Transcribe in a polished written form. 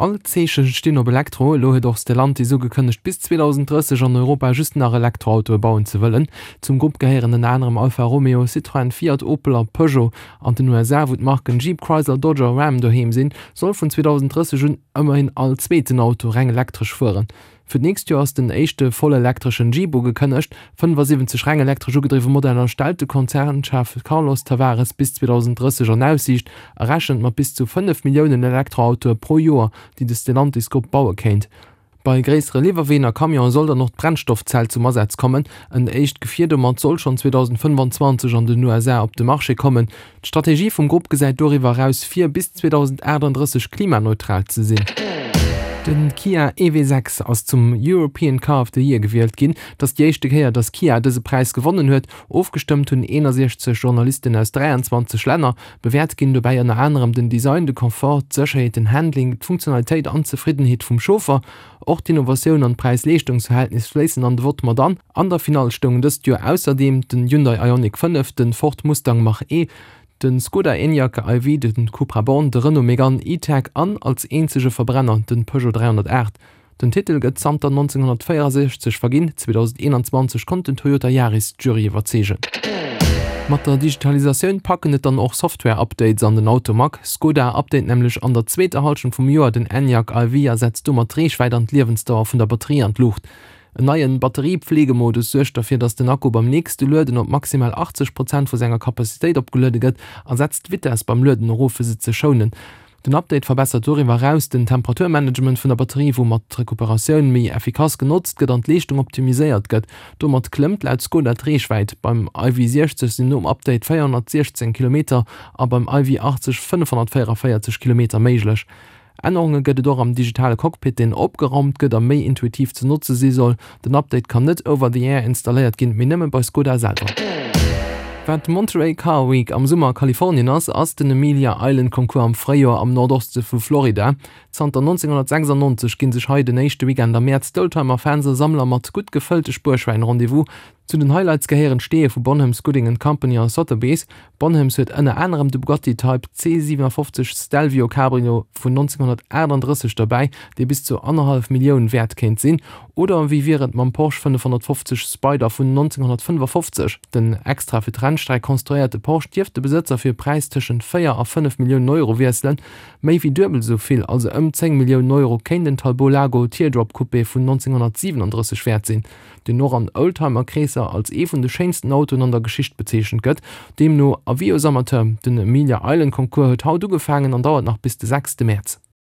All d'Zeeche stinn op Elektro. Elo huet och Stellantis ugekënnegt, bis 2030 an Europa just nach Elektroautoe bauen ze wëllen. Zum Grupp gehéieren ënner anerem Alfa Romeo, Citroën, Fiat, Opel a Peugeot. An den USA, wou d'Marken Jeep, Chrysler, Dodge a Ram doheem sinn, soll vun 2030 un ëmmerhin all zweeten Auto reng elektresch fueren. Fir d'nächst Joer ass den éischte vollelektreschen Jeep ugekënnegt. 75 reng elektresch ugedriwwe Modeller stellt de Konzernchef Carlos Tavares bis 2030 an Aussiicht a rechent mat bis zu 5 Milliounen Elektroautoe pro Joer, déi de Stellantis-Grupp baue kéint. Bei gréissere Liwwerween a Camionë soll dann och d'Brennstoffzell zum Asaz kommen. En éischt Gefier domat soll schonn 2025 an den USA op de Marché kommen. D'Strategie vum Grupp gesäit doriwwer eraus vir, bis 2038 klimaneutral ze sinn. Den Kia EV6 ass zum European Car of the Year gewielt ginn. Et ass déi éischte Kéier, datt Kia dëse Präis gewonnen huet. Ofgestëmmt hunn 61 Journalisten aus 23 Länner. Bewäert ginn dobäi ënner anerem den Design, de Confort, d'Sécherheet, den Handling, d'Funktionalitéit an d'Zefriddenheet vum Chauffer. Och d'Innovatioun an d'Präis-Leeschtungs-Verhältnis fléissen an de Vott mat an. An der Finall stoungen dëst Joer ausserdeem den Hyundai Ioniq 5, den Ford Mustang Mach-E, den Skoda Enyaq iV, den Cupra Born, de Renault Megane E-Tech an, als eenzege Verbrenner, den Peugeot 308. Den Titel gëtt zanter 1964 verginn, 2021 konnt den Toyota Yaris d'Jury iwwerzeegen. Mat der Digitalisatioun packen et dann och Software-Updates an den Automag. Skoda update nämlech an der zweeter Hallschent vum Joer den Enyaq iV a setzt domat d'Reechwäit an d'Liewensdauer vun der Batterie an d'Luucht. En neien Batteriepflegemodus suergt derfir, dass den Akku beim nächste Lueden op maximal 80 Prozent vu senger Kapazitéit opgeluede gëtt a setzt d'Vitess beim Lueden erof fir se ze schounen. Den Update verbessert doriwwer eraus den Temperaturmanagement vun der Batterie, woumat d'Recuperatioun méi effikass genotzt gëtt an d'Leeschtung optimiséiert gëtt. Domat klëmmt laut Skoda d'Reechwäit. Beim iV60 sinn nom Update 416 Kilometer a beim iV80 544 Kilometer méiglech. Ännerunge gëtt et och am digitale Cockpit, deen opgeraumt gëtt a méi intuitiv ze notze si soll. Den Update kann net over the air installéiert ginn, mee nëmme bei Skoda selwer. Wat d'Monterey Car Week am Summer a Kalifornien ass, ass den Amelia Island Concours am Fréijoer am Nordoste vu Florida. Zanter 1996 ginn sech hei den éischte Weekend am Mäerz d'Oldtimer-Fans a Sammler mat gutt gefëllte Spuerschwäin Rendez-vous. Zu den Highlights gehéieren d'Steeë vu Bonhams, Gooding and Company a Sotheby's. Bonhams huet ënner anerem de Bugatti Type C57 Stelvio Cabrio vun 1938 derbäi, dee bis zu annerhallef Millioun wäert kéint sinn. Oder wéi wier et mam Porsche 550 Spyder vun 1955? Den extra fir d'Rennstreck konstruéierte Porsche dierft de Besëtzer fir e Präis tëschent 4 a 5 Milliounen Euro wiesselen. Méi wéi duebel esou vill, also ëm 10 Milliounen Euro, kéint en Talbot Lago Teardrop Coupé vun 1937 wäert sinn. deen och an Oldtimer-Kreesser als ee vun de schéinsten Autoen an der Geschicht bezeechent gëtt. Deemno Avis aux amateurs, den Amelia Island Concours huet haut ugefaangen an dauert nach bis de sechste Mäerz.